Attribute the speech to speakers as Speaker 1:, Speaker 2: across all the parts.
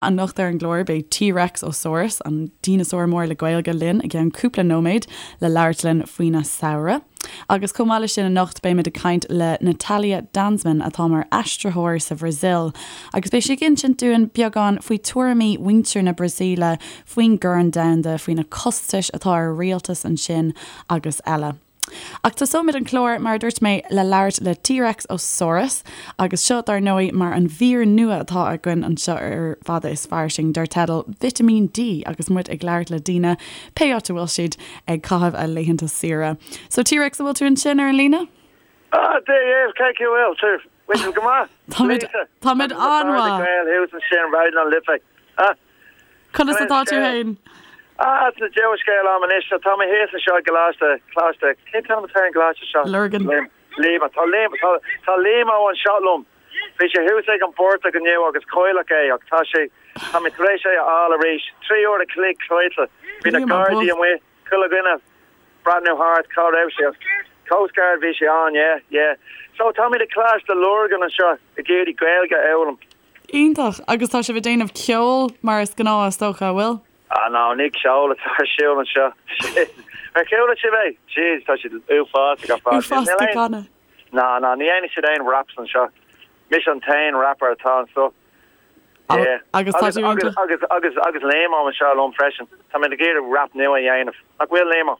Speaker 1: Anocht ar an gclár beidh T-Rex Ó Saurus, an dineasár mór le Gaeilge, linn i gceann cúpla nóiméad le labhairt linn faoina samhradh. Agus chomh maith leis sin anocht beimid ag caint le Natalia Danzmann atá mar aistritheoir sa Bhrasaíl agus beidh sí ag insint dúinn beagán faoi tuairimí mhuintir na Brasaíle faoin gCorn Domhanda, faoi na costais atá ar rialtas ansin agus eile. Ach tosóimid an clár, mar a dúirt mé, le labhairt le T-Rex Ó Saurus, agus seo, dar ndóigh, mar an mhír nua atá againn anseo ar Fada is Fairsing, dar teideal Vitimín D, agus muid ag labhairt le daoine, pé áit a bhfuil siad ag caitheamh a laethanta saoire. So, T-Rex, an bhfuil tú ansin ar an líne?
Speaker 2: Ah, Dia dhaoibh, cén chaoi a bhfuil sibh? Bhfuil sibh go maith?
Speaker 1: Táimid, táimid an-mhaith.
Speaker 2: Gael thuas ansin, Raidió na Life. Ah.
Speaker 1: Conas atá tú fhéin?
Speaker 2: Ah, tá dea-scéal agam anois. So tá mé thíos anseo i gColáiste, Coláiste, cén t-ainm atá ar an gcoláiste seo?
Speaker 1: Lurgan.
Speaker 2: Liam, tá Liam, tá, tá Liam ó anseo liom. Bhí sé thuas ag an bportach inniu agus cailleadh é ach tá sé, tá mé tar éis é a fháil arís. 3 uair a chloig caillte. Bhí na Gardaí amuigh, chuile dhuine breathnú thart cá raibh sé. Coast Guard bhí sé ann, yeah, yeah. So táimid i Coláiste Lurgan anseo ag iarraidh Gaeilge a fhoghlaim.
Speaker 1: Iontach! Agus tá sibh ag déanamh ceoil mar is gnáth is dócha, an bhfuil?
Speaker 2: Ah no, ní ceol atá ar siúl anseo. Ar chuala sibh é? Jeez, tá siad uafásach ar fad.
Speaker 1: Uafásach ag canadh.
Speaker 2: No, no, ní dhéanfaidh siad aon raps anseo. Mise an t-aon rapper atá anseo. Yeah.
Speaker 1: Agus tá tú iontach.
Speaker 2: Agus, agus, agus Liam anseo liom freisin. Tá mé ag iarraidh rap nua a dhéanamh. Nach bhfuil Liam?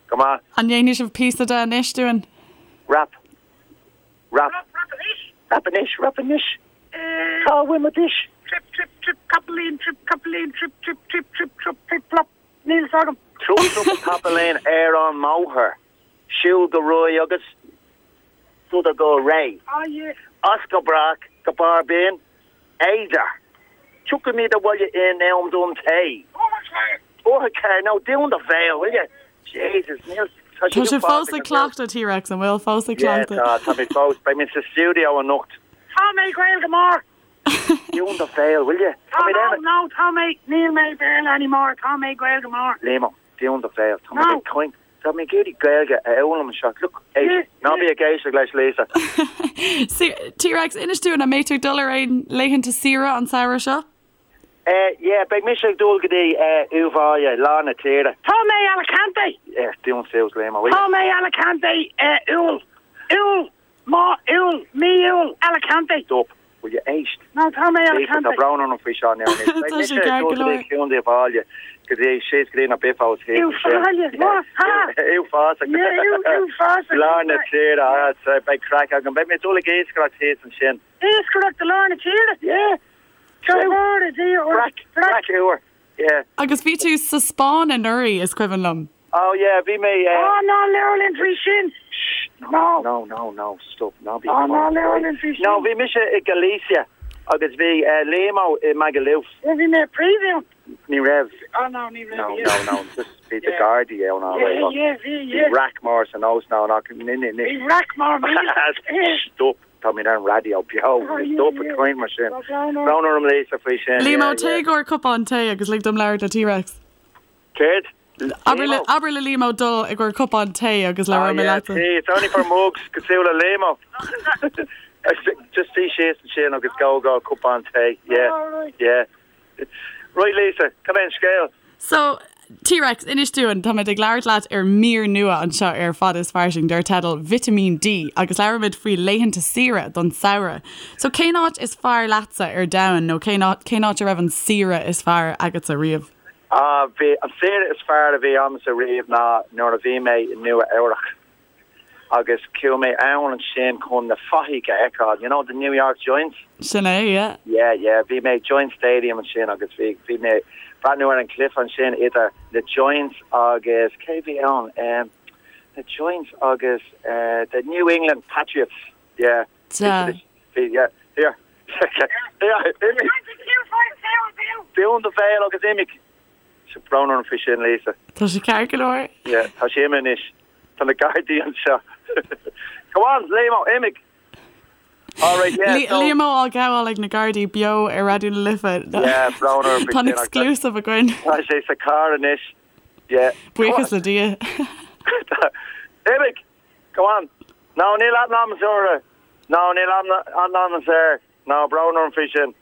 Speaker 2: Go maith.
Speaker 1: An ndéanfaidh sibh píosa de anois dúinn?
Speaker 2: Rap. Rap. Rap anois. Rap anois, rap anois. Cá bhfuil mo dís?
Speaker 3: Trip, trip, trip, capaillín, trip, capaillín, trip, trip, trip, trip, trup, plip, plop. Níl fhios agam.
Speaker 2: Trup, trup, capaillín ar an mbóthar. Siúl go réidh agus sodar go réidh.
Speaker 3: Ah yeah.
Speaker 2: As go brách go barr Binn Éadair. Tiocfaimid abhaile in am don tae. Uair a No, dún do bhéal, will you? Jesus, níl...
Speaker 1: Tá sibh fós ag cleachtadh, T-Rex, an bhfuil? Fós ag
Speaker 2: cleachtadh? Yeah, tá, tá mé fós. Beidh mé sa stiúideo anocht.
Speaker 3: Tá mé Gaeilge mór!
Speaker 2: Dún do bhéal, will you?
Speaker 3: Tá, no, no, tá mé, níl mé Béarla anymore, tá mé Gaeilge mór.
Speaker 2: Liam, dún do bhéal, tá mé ag caint. Tá mé ag iarraidh Gaeilge a fhoghlaim anseo. Look, éist, ná bí ag éisteacht leis, Lisa.
Speaker 1: T-Rex, inis dúinn, an mbeidh tú ag dul ar aon laethanta saoire an samhradh seo?
Speaker 2: Eh, yeah, beidh mise ag dul go dtí eh, Uíbh Fhailí, lár na tíre.
Speaker 3: Tá mé Alicante!
Speaker 2: Eh, dún suas, Liam, will you?
Speaker 3: Tá mé Alicante, eh, Iúil. Iúil! Má, Iúil, mí Iúil, Alicante!
Speaker 2: Stop, will you éist?
Speaker 3: No, tá mé
Speaker 2: Lisa,
Speaker 3: Alicante.
Speaker 2: tá brón orm faoi seo now anois. Beidh
Speaker 1: Tá
Speaker 2: mise
Speaker 1: sé
Speaker 2: ag
Speaker 1: ceart
Speaker 2: dul
Speaker 1: go
Speaker 2: go dtí
Speaker 1: leor.
Speaker 2: Contae Uíbh Fhailí, go dtí síos go dtí na Biffos thíos
Speaker 3: Uíbh
Speaker 2: ansin.
Speaker 3: Fhailí, má, ha!
Speaker 2: Uafásach.
Speaker 3: Yeah, Uí, uafásach.
Speaker 2: Lár na tíre, ah, so beidh craic agam. Beidh mé ag dul ag iascaireacht thíos ansin.
Speaker 3: Iascaireacht i lár na tíre?
Speaker 2: Yeah. Breac, breac úr, yeah.
Speaker 1: Agus bhí tú sa Spáinn anuraidh, is cuimhin liom.
Speaker 2: Oh yeah, bhí mé eh.
Speaker 3: Oh ná labhair linn faoi sin!
Speaker 2: Shh,
Speaker 3: No.
Speaker 2: no, no, no, stop, ná bí
Speaker 3: Oh ná labhair linn faoi sin!
Speaker 2: No, bhí mise i Galicia agus bhí eh Liam-ó i Magaluf.
Speaker 3: Yeah, bhí mé i príomh
Speaker 2: Ní raibh.
Speaker 3: Oh no, ní raibh,
Speaker 2: No,
Speaker 3: yeah.
Speaker 2: no, no, just bhí the
Speaker 3: Yeah.
Speaker 2: Gardaí ann all
Speaker 3: Yeah,
Speaker 2: right.
Speaker 3: yeah, bhí,
Speaker 2: Bhí
Speaker 3: yeah.
Speaker 2: raic mór san óstán ach ní, ní, ní.
Speaker 3: Bhí raic mór míle.
Speaker 2: Stop. Tá mé ar an raidió beo, stop ag caint mar sin. Brón orm Lisa faoi sin.
Speaker 1: Liam Ó, téigh i gcomhair cupán tae agus lig dom labhairt le T-Rex.
Speaker 2: Céard?
Speaker 1: Abair le Liam Ó dul i gcomhair cupán tae agus labhróidh mé leatsa.
Speaker 2: Tea, it's only for mugs, cosúil le Liam Ó. Just suigh síos ansin agus gabh i gcomhair cupán tae, yeah, yeah. Right Lisa, cad é an scéal?
Speaker 1: So, T-Rex, inis dúinn, táimid ag labhairt leat ar mír nua anseo ar Fada is Fairsing dar teideal Vitimín D agus labhraímid faoi laethanta saoire don samhradh. So cén áit is fearr leatsa ar domhan nó cén áit, cén áit a raibh an saoire is fearr agatsa riamh?
Speaker 2: Ah, bhí, an saoire is fearr a bhí agamsa riamh ná nuair a bhí mé i Nua Eabhrach. agus chuaigh mé ann ansin chun na Fathaigh a fheiceáil, you know, the New York Giants?
Speaker 1: Sin é, yeah.
Speaker 2: Yeah, yeah, bhí mé ag Giants Stadium ansin agus bhí, bhí mé ag breathnú ar an cluiche ansin idir na Giants agus, cé bhí ann, em, na Giants agus eh, the New England Patriots, yeah.
Speaker 1: Sea.
Speaker 2: Bhí, yeah, here, here, imigh! Dún do bhéal agus imigh! Tá brón orm faoi sin, Lisa.
Speaker 1: Tá sé ceart go leor.
Speaker 2: Yeah, tá sé imithe anois. Tá na Gardaí anseo. Come on, Liam Ó, imigh! All right, yeah, so.
Speaker 1: Liam Ó á ghabháil ag na Gardaí beo ar Raidió na Life.
Speaker 2: Yeah, brón orm faoi
Speaker 1: Tá an
Speaker 2: sin.
Speaker 1: exclusive againn.
Speaker 2: Tá sé sa carr anois. Yeah.
Speaker 1: Buíochas le Dia.
Speaker 2: Imigh! Come on! No, níl aithne agamsa orthu. No, níl aithne agamsa air. No, brón orm faoi sin.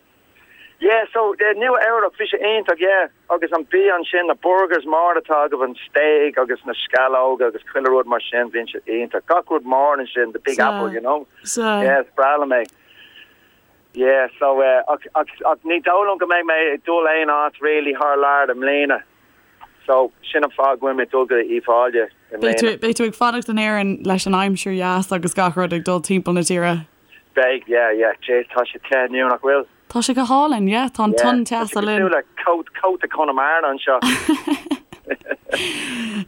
Speaker 2: Yeah, so Nua Eabhrac, bhí sé iontach, yeah, agus an bia ansin, na burgers mór atá agaibh, an steak agus na sceallóga agus chuile rud mar sin, bíonn sé iontach. Gach rud mór ansin, the big apple, you know.
Speaker 1: Sea.
Speaker 2: Yeah, is breá liom é. Yeah, so eh, ach, ach, ach ní dóigh liom go mbeidh mé ag dul aon áit really thar lear i mbliana. So, sin an fáth go bhfuil mé ag dul go Uíbh Fhailí i mbliana.
Speaker 1: Beidh tú ag fanacht in Éirinn leis an aimsir dheas agus gach rud ag dul timpeall na tíre.
Speaker 2: Beidh, yeah, yeah. Jeez, tá sé te inniu, nach bhfuil?
Speaker 1: Tá sé go hálainn, yeah, tá an tonn teasa linn.
Speaker 2: Tá sé cosúil le cóta, cóta Conamara anseo.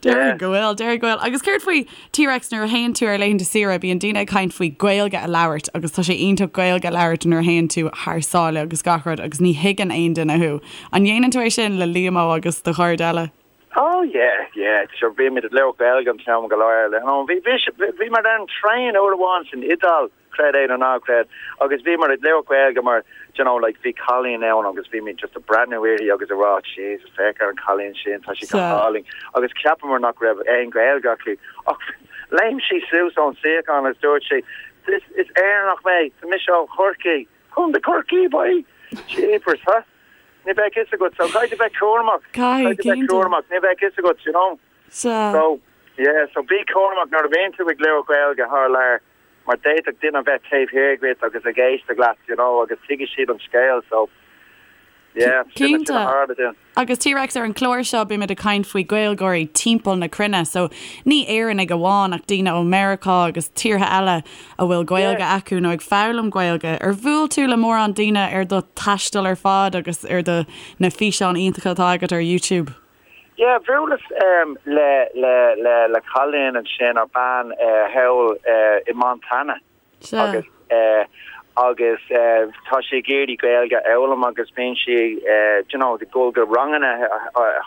Speaker 1: Déarfainn go bhfuil, déarfainn go bhfuil. Agus céard faoi T-Rex nuair a théann tú ar laethanta saoire, bíonn daoine ag caint faoi Gaeilge a labhairt agus tá sé iontach Gaeilge a labhairt nuair a théann tú thar sáile agus gach rud agus ní thuigeann aon duine thú. An ndéanann tú é sin le Liamó agus do chairde eile?
Speaker 2: Oh yeah, yeah, sure bímid ag labhairt Gaeilge an t-am go léir. Bhí, bhí, bhí muid ar an traein uair amháin san Iodáil creid é nó ná creid, agus bhíomar ag labhairt Gaeilge mar, do you know, like bhí cailín ann agus bhí muid just ag breathnú uirthi agus ag rá Jesus féach ar an cailín sin, tá sí go hálainn agus cheapamar nach raibh aon Ghaeilge aici ach léim sí suas ón suíochán agus dúirt sí is, is Éireannach mé, tá mise ó Chorcaigh, Contae Chorcaí boy! Jeepers, huh? Ní bheadh fhios agat, so caithfidh tú bheith cúramach,
Speaker 1: Caithfidh,
Speaker 2: caithfidh tú bheith
Speaker 1: cinnte.
Speaker 2: cúramach, ní bheadh fhios agat, you know?
Speaker 1: Sea.
Speaker 2: So, yeah, so bí cúramach nuair a bhíonn tú ag labhairt Gaeilge thar lear. mar d'fhéadfadh duine a bheith taobh thiar díot agus ag éisteacht leat, you know, agus tuigfidh siad an scéal, so, yeah, sin, sin a
Speaker 1: Cinnte.
Speaker 2: tharla dúinn.
Speaker 1: Agus T-Rex, ar an chlár seo bímid ag caint faoi Gaeilgeoirí timpeall na cruinne, so ní Éireannaigh amháin ach daoine ó Meiriceá agus tíortha eile a bhfuil Gaeilge
Speaker 2: Yeah.
Speaker 1: acu nó ag foghlaim Gaeilge. Ar bhuail tú le mórán daoine ar do thaisteal ar fad agus ar do na físeáin iontacha atá agat ar YouTube?
Speaker 2: Yeah, bhuaileas le le le le cailín ansin ar bean thall i Montana agus agus tá sí ag iarraidh Gaeilge a fhoghlaim agus bíonn sí you know ag dul go ranganna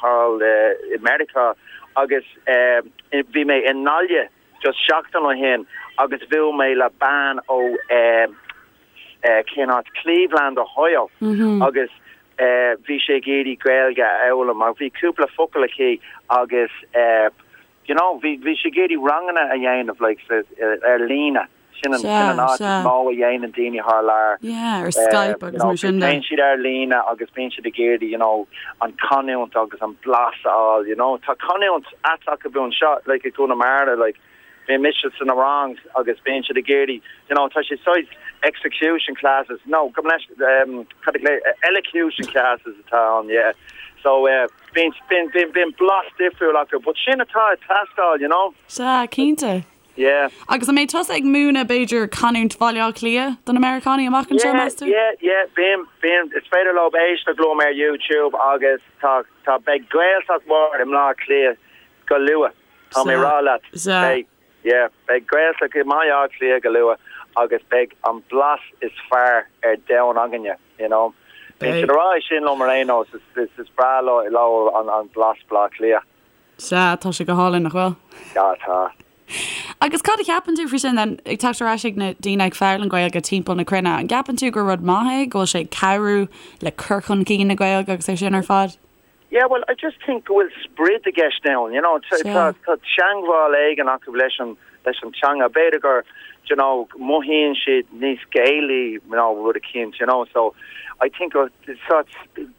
Speaker 2: thall i Meiriceá agus bhí mé i nGaillimh just seachtain ó shin agus bhuail mé le bean ó cén áit Cleveland, Ohio agus bhí sí ag iarraidh Gaeilge a fhoghlaim ach bhí cúpla focal aici agus you know bhí bhí sí ag iarraidh ranganna a dhéanamh like ar líne. Sin an sin an áit is mó a dhéanann daoine thar lear.
Speaker 1: Yeah, ar Skype agus mar sin de.
Speaker 2: Téann siad ar líne agus bíonn siad ag iarraidh you know an canúint agus an blas a fháil you know. Tá canúint ait acu anseo like i gConamara like bíonn mise sna rangs agus bíonn siad ag iarraidh you know tá sé saghas execution classes no gabh mo leithscéal um cad a elocution classes atá ann yeah so eh bíonn bíonn bíonn bíonn blas difriúil acu but sin atá ag teastáil you know.
Speaker 1: Sea, cinnte.
Speaker 2: Yeah.
Speaker 1: Agus an mbeidh tusa ag múineadh b'fhéidir canúint Bhaile Átha Cliath do na Meiriceánaigh amach anseo,
Speaker 2: Yeah
Speaker 1: meas tú?
Speaker 2: yeah yeah bím bím is féidir leo éisteacht liom ar YouTube agus tá tá beidh Gaeltacht mhór i mBleá Cliath go luath. Tá mé rá leat, beidh, yeah, beidh Gaeltacht i mBaile Átha Cliath go luath agus beidh an blas is fearr ar domhan againne, you know. Bíonn siad ag rá é sin liom ar aon nós, is, is breá leo an, an blas Bleá Cliath.
Speaker 1: Sea, tá sé go hálainn, nach bhfuil?
Speaker 2: Yeah, tá.
Speaker 1: Agus cad a cheapann tú faoi sin then, ag teacht ar ais ag na daoine ag foghlaim Gaeilge timpeall na cruinne, an gceapann tú gur rud maith é, go bhfuil sé ag cabhrú le cur chun cinn na Gaeilge agus é sin ar fad?
Speaker 2: Yeah, well, I just think go bhfuil sprid i gceist ann, you know, tá tá teangmháil éigin acu leis an leis an teanga. B'fhéidir gur, you know, mothaíonn siad níos Gaelaí, you know, rud eicínt, you know, so I think go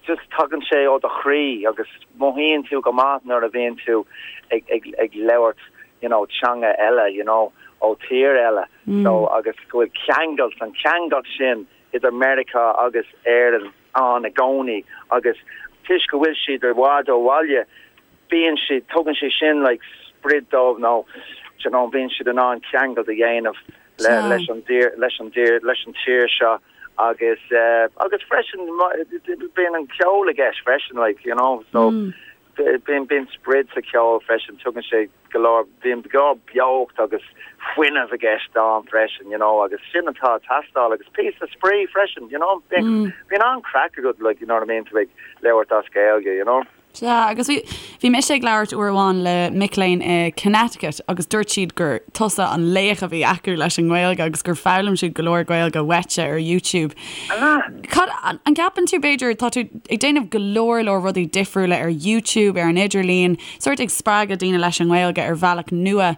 Speaker 2: just tagann sé ó do chroí agus mothaíonn tú go maith nuair a bhíonn tú ag ag ag labhairt, you know, teanga eile, you know, ó tír eile. So agus go bhfuil ceangailt, an ceangailt sin idir Meiriceá agus Éirinn ann i gcónaí agus toisc go bhfuil siad i bhfad ó bhaile bíonn siad, tugann sé sin like sprid dóibh nó do you know bíonn siad in ann ceangailt a dhéanamh le leis an dtír leis an dtír leis an tír seo agus eh agus freisin bíonn an ceol i gceist freisin like you know so Bíonn, bíonn sprid sa cheol freisin, tugann sé go leor, bíonn go leor beocht agus fuinneamh i gceist ann freisin, you know, agus sin atá ag teastáil agus píosa spraoi freisin, you know, bíonn, bíonn an-craic agat, like, you know what I mean, tú ag labhairt as Gaeilge, you know.
Speaker 1: Sea, agus bhí, bhí mise ag labhairt uair amháin le mic léinn i Connecticut agus dúirt siad gur tusa an laoch a bhí acu leis an nGaeilge agus gur foghlaim siad go leor Gaeilge uaitse ar YouTube. Cad, an gceapann tú, b'fhéidir, tá tú ag déanamh go leor leor rudaí difriúla ar YouTube, ar an idirlíon, sórt ag spreagadh daoine leis an nGaeilge ar bhealach nua.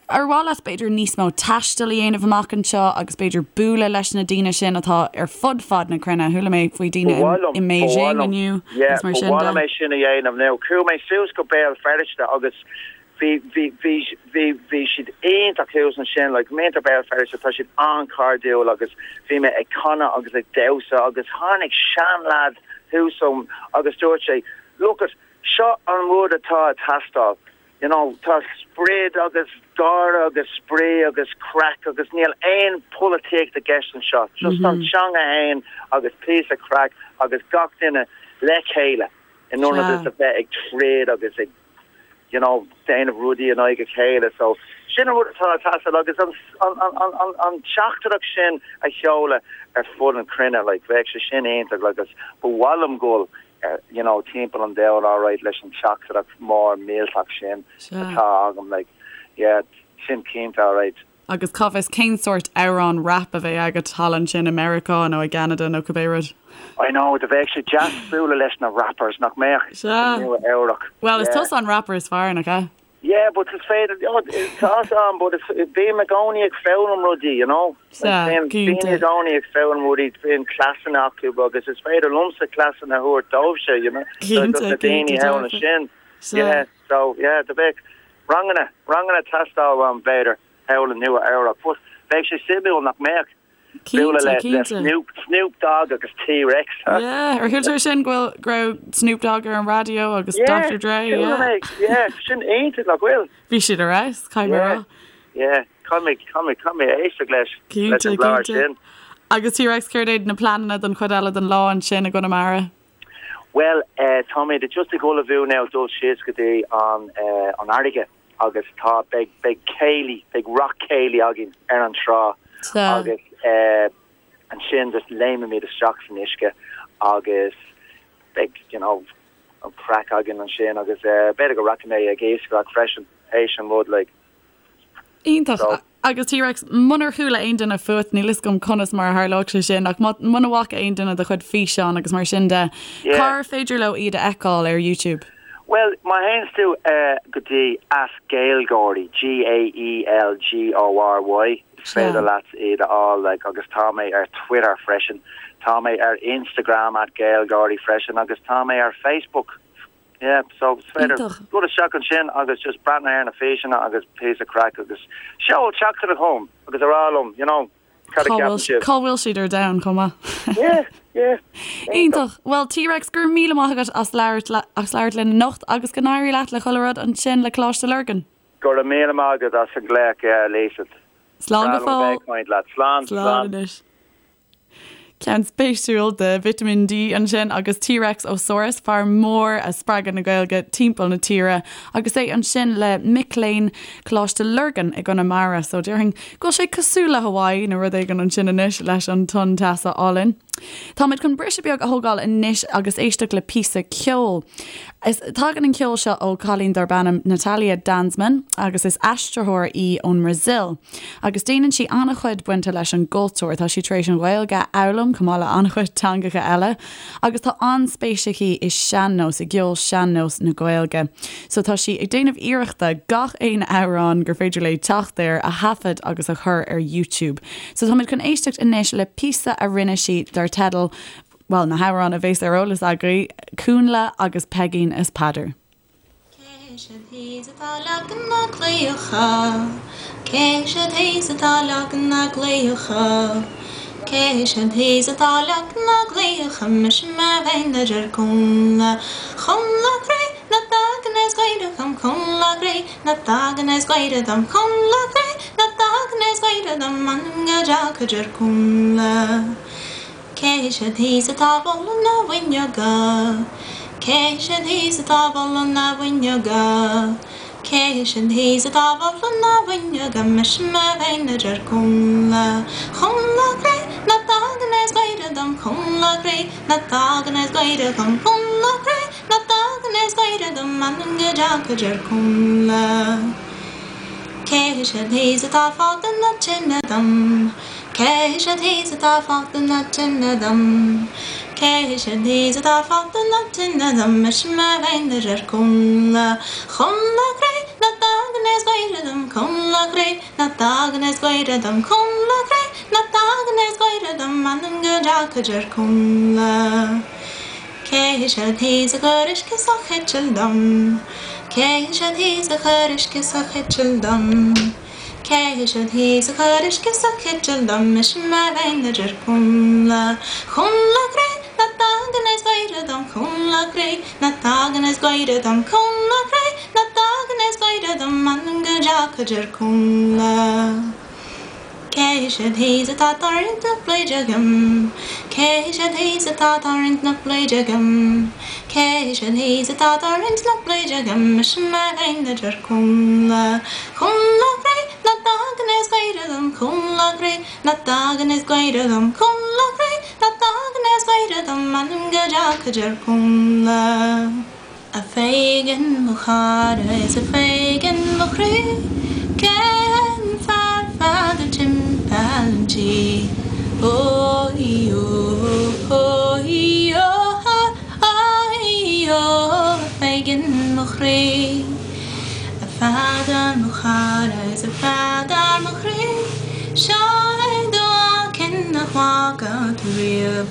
Speaker 1: Ar mhaith leat b'fhéidir níos mó taistil a dhéanamh amach anseo agus b'fhéidir bualadh leis na daoine sin atá ar fud fad na cruinne? Chuala mé faoi daoine i mBeijing inniu
Speaker 2: agus mar sin de. Ba mhaith liom é sin a dhéanamh now. Chuaigh mé suas go Béal Feirste agus bhí bhí bhí bhí bhí siad iontach thuas ansin like muintir Béal Feirste tá siad an-chairdiúil agus bhí mé ag canadh agus ag damhsa agus tháinig seanleaid thuas chugam agus dúirt sé look it seo an rud atá ag teastáil You know, tá sprid agus gáire agus spraoi agus craic agus níl aon pholaitíocht i gceist anseo. Just an teanga fhéin agus píosa craic agus gach duine le chéile in ionad is a bheith ag troid agus ag, you know, déanamh rudaí in aghaidh a chéile. So, sin an rud atá ag teastáil agus an, an, an, an, an teachtaireacht sin a sheoladh ar fud an chruinne, like, bheadh sé sin iontach agus ba mhaith liom dul you know timpeall an domhain alright leis an teachtaireacht mór millteach sin atá agam like yeah sin cinnte alright.
Speaker 1: Agus cá bhfios cén sórt amhrán rap a bheidh agat thall ansin i Meiriceá nó i gCeanada nó cibé rud.
Speaker 2: I know, do bheadh sé deas bualadh leis na rappers, nach mbeadh?
Speaker 1: Sea.
Speaker 2: I Nua Eabhrac.
Speaker 1: Bhuel, is tusa an rapper is fearr, nach ea?
Speaker 2: Yeah, but is féidir, oh, tá's a'm, but is, bím i gcónaí ag foghlaim rudaí, you know?
Speaker 1: Sea,
Speaker 2: Like, bíonn
Speaker 1: cinnte.
Speaker 2: daoine i gcónaí ag foghlaim rudaí, bíonn cleasanna acu agus is féidir liomsa cleasanna a thabhairt dóibhse, you know?
Speaker 1: Cinnte,
Speaker 2: Do na daoine
Speaker 1: cinnte,
Speaker 2: thall
Speaker 1: dearfa.
Speaker 2: ansin.
Speaker 1: Sea.
Speaker 2: Yeah, so, yeah, do bheadh ranganna, ranganna ag teastáil uaim, b'fhéidir, thall i Nua Eabhrac, but bheadh sé suimiúil nach mbeadh?
Speaker 1: Cinnte,
Speaker 2: le
Speaker 1: cinnte.
Speaker 2: Snoop, Snoop Dogg agus T-Rex.
Speaker 1: Yeah, ar chuala tú sin go bhfuil, go raibh Snoop Dogg ar an raidió agus
Speaker 2: Yeah,
Speaker 1: Dr. Dre,
Speaker 2: chuala
Speaker 1: yeah.
Speaker 2: mé, yeah, sin iontach, nach bhfuil?
Speaker 1: Bhí siad ar fheabhas, caithfidh mé a
Speaker 2: Yeah,
Speaker 1: rá.
Speaker 2: yeah, caithfidh mé, caithfidh mé, caithfidh mé éisteacht leis, leis
Speaker 1: Cinnte,
Speaker 2: an gclár
Speaker 1: cinnte.
Speaker 2: sin.
Speaker 1: Agus T-Rex, céard iad na pleananna don chuid eile den lá ansin i gConamara?
Speaker 2: Bhuel, eh, táimid just ag ullmhú now dul síos go dtí an, eh, an fharraige. agus tá, beidh, beidh céilí, beidh rock céilí againn ar an trá agus eh ansin just léimimid isteach san uisce agus beidh, you know, an craic againn ansin agus eh b'fhéidir go rachaidh mé ag iascaireacht freisin théis an rud like.
Speaker 1: Iontach.
Speaker 2: So.
Speaker 1: Agus T-Rex, munar chuala aon duine fút, níl fhios agam conas mar a tharlódh sé sin, ach muna bhfaca aon duine do chuid físeán agus mar sin de,
Speaker 2: Yeah.
Speaker 1: cár féidir leo iad a fheiceáil ar YouTube?
Speaker 2: Bhuel, má théanns tú go dtí at Gaelgory, G-A-E-L-G-O-R-Y, is féidir leat iad a fháil, like, agus tá mé ar Twitter freisin, tá mé ar Instagram at Gaelgory freisin agus tá mé ar Facebook, yeah, so is féidir dul isteach ansin agus just breathnú ar na físeanna agus píosa craic agus seol teachtaireacht chugam agus a rá liom, you know. Cad a cheapann sibh?
Speaker 1: Cá bhfuil siad ar domhan chomh maith?
Speaker 2: Yeah, yeah.
Speaker 1: Iontach. Bhuel, T-Rex, go raibh míle maith agat as labhairt as labhairt linn anocht agus go n-éirí leat le chuile rud ansin le Coláiste Lurgan.
Speaker 2: Go raibh míle maith agat as an nglaoch, Lisa.
Speaker 1: Slán go
Speaker 2: Breá liom a bheith
Speaker 1: fóill.
Speaker 2: ag caint leat. Slán,
Speaker 1: Slán
Speaker 2: slán.
Speaker 1: anois. Ceann spéisiúil de Vitamin D ansin agus T-Rex Ó Saurus, fear mór ag spreagadh na Gaeilge timpeall na tíre agus é ansin le mic léinn Coláiste Lurgan i gConamara. So déarfainn go bhfuil sé cosúil le Hawaii nó rud éigin ansin anois leis an tonn teasa álainn. Táimid chun briseadh beag a thógáil anois agus éisteacht le píosa ceoil. Is tagann an ceol seo ó cailín darb ainm Natalia Danzmann agus is aistritheoir í ón mBrasaíl. Agus déanann sí an-chuid bainte leis an gcultúr. Tá sí tar éis an Ghaeilge a fhoghlaim chomh maith le an-chuid teangacha eile agus tá an-spéis aici i sean-nós, i gceol sean-nós na Gaeilge. So tá sí ag déanamh iarrachta gach aon amhrán gur féidir léi teacht air a thaifead agus a chur ar YouTube. So táimid chun éisteacht anois le píosa a rinne sí dar teideal, bhuel, na hamhráin a bhéas ar eolas agaibh, Cúnnla agus Peigín is Peadar.
Speaker 4: Cé siad thíos atá ag leagan na gclaíocha? Cé siad thíos atá leagan na gclaíocha? Cé siad thíos atá leagan na gclaíocha? Mise mé féin a deir Cúnnla. Cúnnla croí ná tagann is gaire dom Cúnnla croí ná tagann is gaire dom Cúnnla croí ná tagann is gaire dom M'anam go dteacha a deir Cúnnla. Cé siad thíos atá ag bualadh na bhfuinneoga? Cé siad thíos atá ag bualadh na bhfuinneoga? Cé siad thíos atá ag bualadh na bhfuinneoga? Mise mé féin a deir Cúnnla. Cúnnla croí ná tagann is gaire dom Cúnnla croí ná tagann is gaire dom Cúnnla croí ná tagann is gaire dom M'anam go dteacha a deir Cúnnla. Cé siad thíos atá ag fágáil na tine dom? Cé siad thíos atá ag fágáil na tine dom? Cé siad thíos atá ag fágáil na tine dom? Mise mé féin a deir Cúnnla. Cúnnla croí ná tagann. dtagann is gaire dom Connla cré nach dtagann is gaire dom Connla cré nach dtagann is gaire dom M'anam go dteachaidh ar Connla. Cé siad thíos a chuir uisce sa chiteal dom? Cé siad thíos a chuir uisce sa chiteal dom? Cé siad thíos a chuir uisce sa chiteal dom? Mise mé féin a deir Connla. Connla cré nach dtagann is gaire dom Connla cré nach dtagann is gaire dom Connla cré nach dtagann is gaire dom M'anam go dteachaidh ar Connla. Cé siad thíos atá ag tarraingt na pluide agam? Cé siad thíos atá ag tarraingt na pluide agam? Cé siad thíos atá ag tarraingt na pluide agam? Mise mé féin a deir Connla. Connla cré nach dtagann is gaire dom Connla cré nach dtagann is gaire dom Connla cré nach dtagann is gaire dom M'anam go dteachaidh ar Connla. A Pheigin mo chara is a Pheigin mo chroí Cén fear fada timpeall an tí? Ó í ó ó í ó ó í ó a Pheigin mo chroí. A Pheadair mo chara is a Pheadair mo chroí Seo é do mhaicín nach bhfaca tú riamh.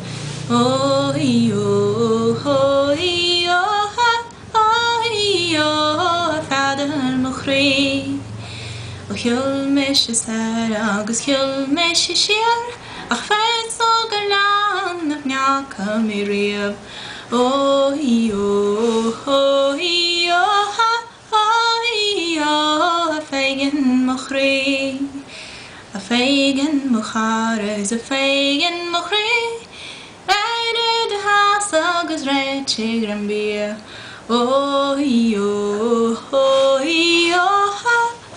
Speaker 4: Ó í ó ó í ó ó í ó a Pheadair mo chroí. Ó shiúil mise soir agus shiúil mise siar ach fios ag oileán nach ndeacha mé riamh. Ó í ó ó í ó ó í ó a Pheigin mo chroí. A Pheigin mo chara is a Pheigin mo chroí Éirigh i do sheasamh agus réitigh greim bia Ó í ó ó í ó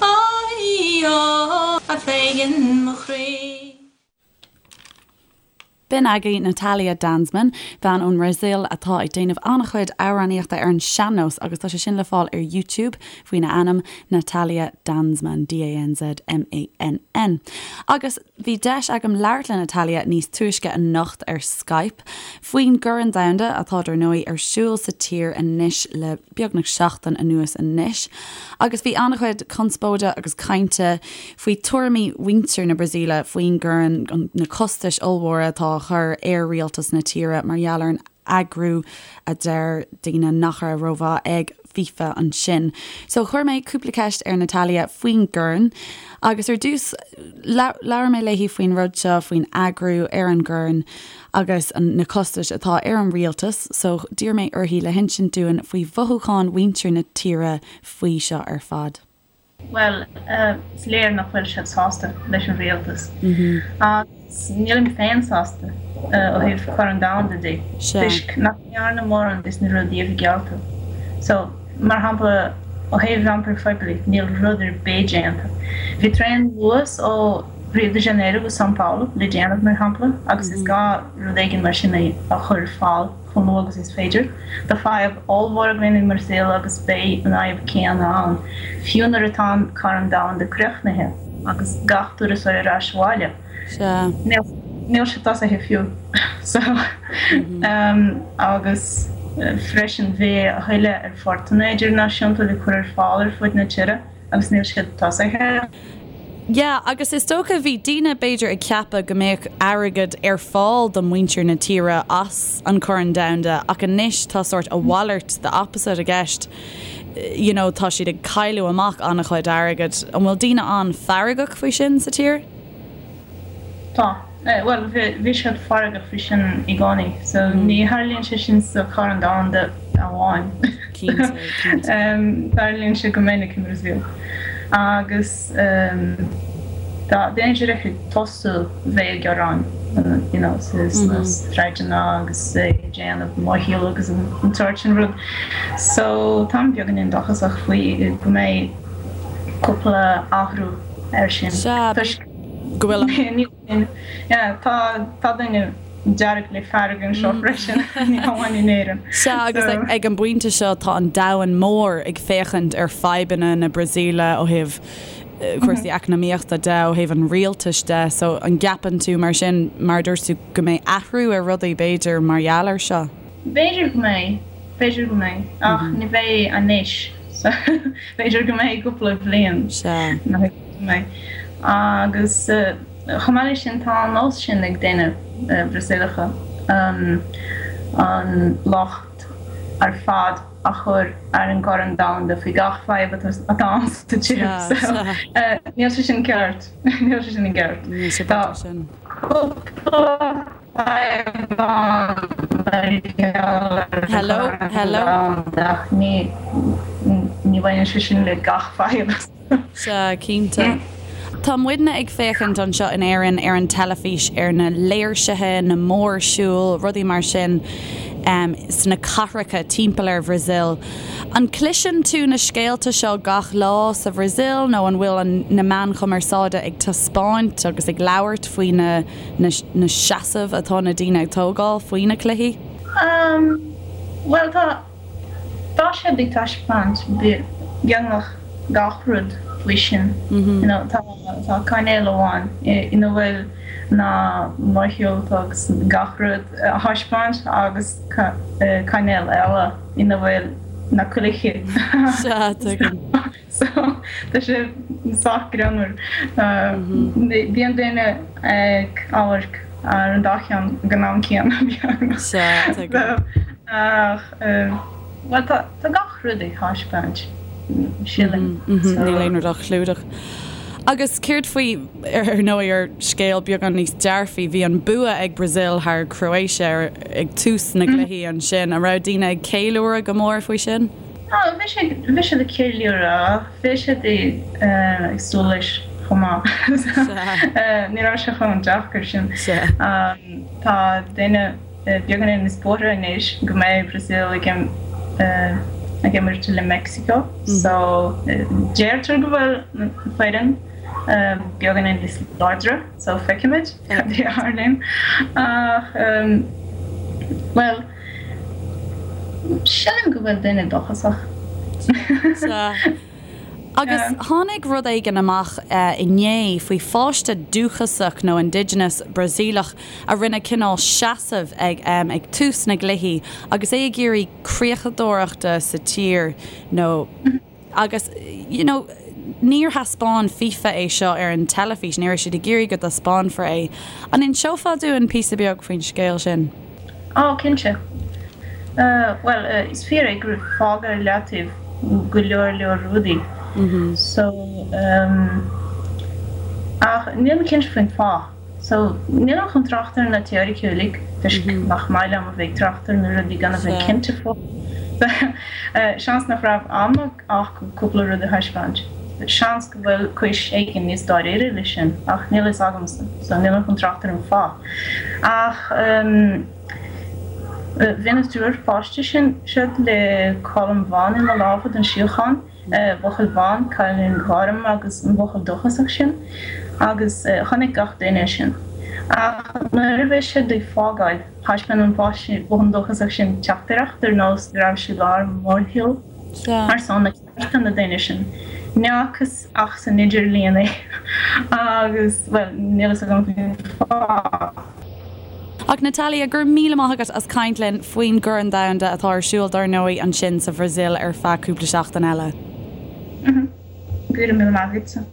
Speaker 4: ó í ó a Pheigin mo chroí.
Speaker 1: B'in agaibh Natalia Danzmann, bean ón mBrasaíl atá ag déanamh an-chuid amhránaíochta ar an sean-nós agus tá sé sin le fáil ar YouTube faoina ainm, Natalia Danzmann, D-A-N-Z-M-A-N-N. Agus bhí deis agam labhairt le Natalia níos túisce anocht ar Skype faoin gCorn Domhanda atá dar ndóigh ar siúl sa tír anois le beagnach seachtain anuas anois agus bhí an-chuid conspóide agus cainte faoi tuairimí mhuintir na Brasaíle faoin gcorn, na costais ollmhóra atá á chur ar rialtas na tíre mar gheall ar an eagrú a deir daoine nach raibh rómhaith ag FIFA ansin. So chuir mé cúpla ceist ar Natalia faoin gcorn agus ar dtús labhair mé léi faoin rud seo, faoin eagrú ar an gcorn agus na costais atá ar an rialtas so d'iarr mé uirthi le hinsint dúinn faoi mhothúcháin mhuintir na tíre faoi seo ar fad.
Speaker 5: Bhuel, is léir nach bhfuil siad sásta leis an rialtas. Agus nílim féin sásta ó thaobh Corn Domhanda de, toisc nach ndearnadh mórán des na rudaí a bhí geallta. So, mar shampla, ó thaobh iompair phoiblí, níl rud ar bith déanta. Bhí traein Luas ó Rio de Janeiro go São Paulo le déanamh, mar shampla, agus is gá rud éigin mar sin a chur ar fáil. chomh luath agus is féidir. Tá fadhb ollmhór againn i mBrasaíl agus beidh an fhadhb céanna ann fiú nuair atá an Corn Domhanda críochnaithe agus gach turasóir ar ais abhaile.
Speaker 1: Sea.
Speaker 5: Níl sé tosaithe fiú. So, agus freisin bhí a thuilleadh aerphortanna idirnáisiúnta le cur ar fáil ar fud na tíre. agus níl siad tosaithe.
Speaker 1: Yeah, agus is dócha bhí daoine b'fhéidir ag ceapadh go mbeadh airgead ar fáil do muintir na tíre as an Corn Domhanda ach anois tá sórt a mhalairt, the opposite i gceist, you know tá siad ag cailleadh amach an-chuid airgid. An bhfuil daoine an-fheargach faoi sin sa tír?
Speaker 5: Tá. Bhuel, bhí siad feargach faoi sin i gcónaí, so ní tharlaíonn sé sin sa Chorn Domhanda amháin.
Speaker 1: Cinnte, cinnte.
Speaker 5: Tarlaíonn sé go minic i mBrasaíl. Agus tá daoine díreach ag tosú bheith ag gearán, you know, sna sráideanna agus ag déanamh mórshíl agus an tsórt sin rud. So táim beagáinín dóchasach faoi go mbeidh cúpla athrú air sin.
Speaker 1: Sea,
Speaker 5: Toisc
Speaker 1: go bhfuil
Speaker 5: an. Yeah, tá tá daoine dearg le fearg anseo freisin, ní hamháin in Éirinn.
Speaker 1: Sea, agus ag an bpointe seo tá an domhan mór ag féachaint ar fadhbanna na Brasaíle ó thaobh cúrsaí eacnamaíochta de, ó thaobh an rialtais de, so an gceapann tú mar sin, mar a dúirt tú, go mbeidh athrú ar rudaí b'fhéidir mar gheall air seo?
Speaker 5: B'fhéidir go mbeidh, b'fhéidir go mbeidh, ach ní bheidh anois. So b'fhéidir go mbeidh cúpla bliain nach mbeidh. Agus chomh maith leis sin tá an nós sin ag daoine Brasaíleacha an locht ar fad a chur ar an gCorn Domhanda faoi gach fadhb atá ann sa tír. So níl sé sin ceart. Níl sé sin i gceart.
Speaker 1: Níl sé
Speaker 5: Tá
Speaker 1: sin.
Speaker 5: cúpla fadhb ann mar gheall ar an
Speaker 1: Hello,
Speaker 5: Chorn
Speaker 1: hello.
Speaker 5: Domhanda ach ní ní bhaineann sé sin le gach fadhb.
Speaker 1: Sea, cinnte. Tá muidne ag féachaint anseo in Éirinn ar an teilifís ar na léirsithe, na mórshiúil, rudaí mar sin sna cathracha timpeall ar Bhrasaíl. An gcloiseann tú na scéalta seo gach lá sa Bhrasaíl nó an bhfuil na meáin chumarsáide ag taispeáint agus ag labhairt faoi na na seasaimh atá na daoine ag tógáil faoi na cluichí?
Speaker 5: Bhuel, tá. Tá siad ag taispeáint beagnach gach rud faoi sin. You know, tá tá cainéal amháin ina bhfuil na mórshiúlta agus gach rud á thaispeáint agus cainéal eile ina bhfuil na cluichí.
Speaker 1: Sea, tuigim.
Speaker 5: So, tá sé sách greannmhar. Bíonn daoine ag amharc ar an dá cheann ag an am céanna, beagnach.
Speaker 1: Sea, tuigim.
Speaker 5: Ach, bhuel, tá gach rud ag taispeáint, sílim.
Speaker 1: Níl aon rud á chlúdach. Agus céard faoi, ar ndóigh, ar scéal beagán níos dearfaí, bhí an bua ag Brazil thar Croatia ag tús na gcluichí ansin. An raibh daoine ag ceiliúradh go mór faoi sin?
Speaker 5: Á, bhí siad, bhí siad ag ceiliúradh, bhí siad ag súil leis chomh maith. Ní raibh sé chomh deacair sin. Tá daoine beagáinín níos buartha anois go mbeidh Brazil ag ag imirt le Mexico so deirtear go bhfuil an foireann beagáinín níos láidre so feicfimid cad é a tharlaíonn. Ach, bhuel. Sílim go bhfuil daoine dóchasach.
Speaker 1: Sea. Agus tháinig rud éigin amach inné faoi pháiste dúchasach nó indigenous Brasaíleach a rinne cineál seasamh ag ag tús na gcluichí agus é ag iarraidh creachadóireachta sa tír nó Agus, you know, níor thaispeáin FIFA é seo ar an teilifís, ní raibh siad ag iarraidh go dtaispeánfar é. An inseofá dúinn píosa beag faoin scéal sin?
Speaker 5: Á, cinnte. Bhuel, is fíor é gur fágadh ar leataobh go leor leor rudaí. So, ach nílim cinnte faoin fáth. So, nílim chun trácht ar na teoiricí uilig, toisc nach maith liom a bheith ag trácht ar na rudaí gan a bheith cinnte fúthu. Seans nach raibh am acu cúpla rud a thaispeáint. Seans go bhfuil cúis éigin níos dáiríre leis sin, ach níl a fhios agamsa, so nílim chun trácht ar an fáth. Ach bhí na triúr páiste sin siad le colm bhán ina lámha don síocháin. buachaill bán, cailín gorm agus an buachaill dúchasach sin agus chonaic gach duine é sin. Ach nuair a bhí siad ag fágáil, thaispeáin an páiste buachaill dúchasach sin teachtaireacht ar nós go raibh sé i lár mórshiúil ar son na cearta na daoine sin. Ní fhacthas ach san idirlíon é agus, bhuel, níl fhios agam faoin fáth.
Speaker 1: Ach Natalia, go raibh míle maith agat as caint linn faoin gCorn Domhanda atá ar siúl dár ndóigh ansin sa Bhrasaíl ar feadh cúpla seachtain eile.
Speaker 5: Go raibh míle maith agatsa.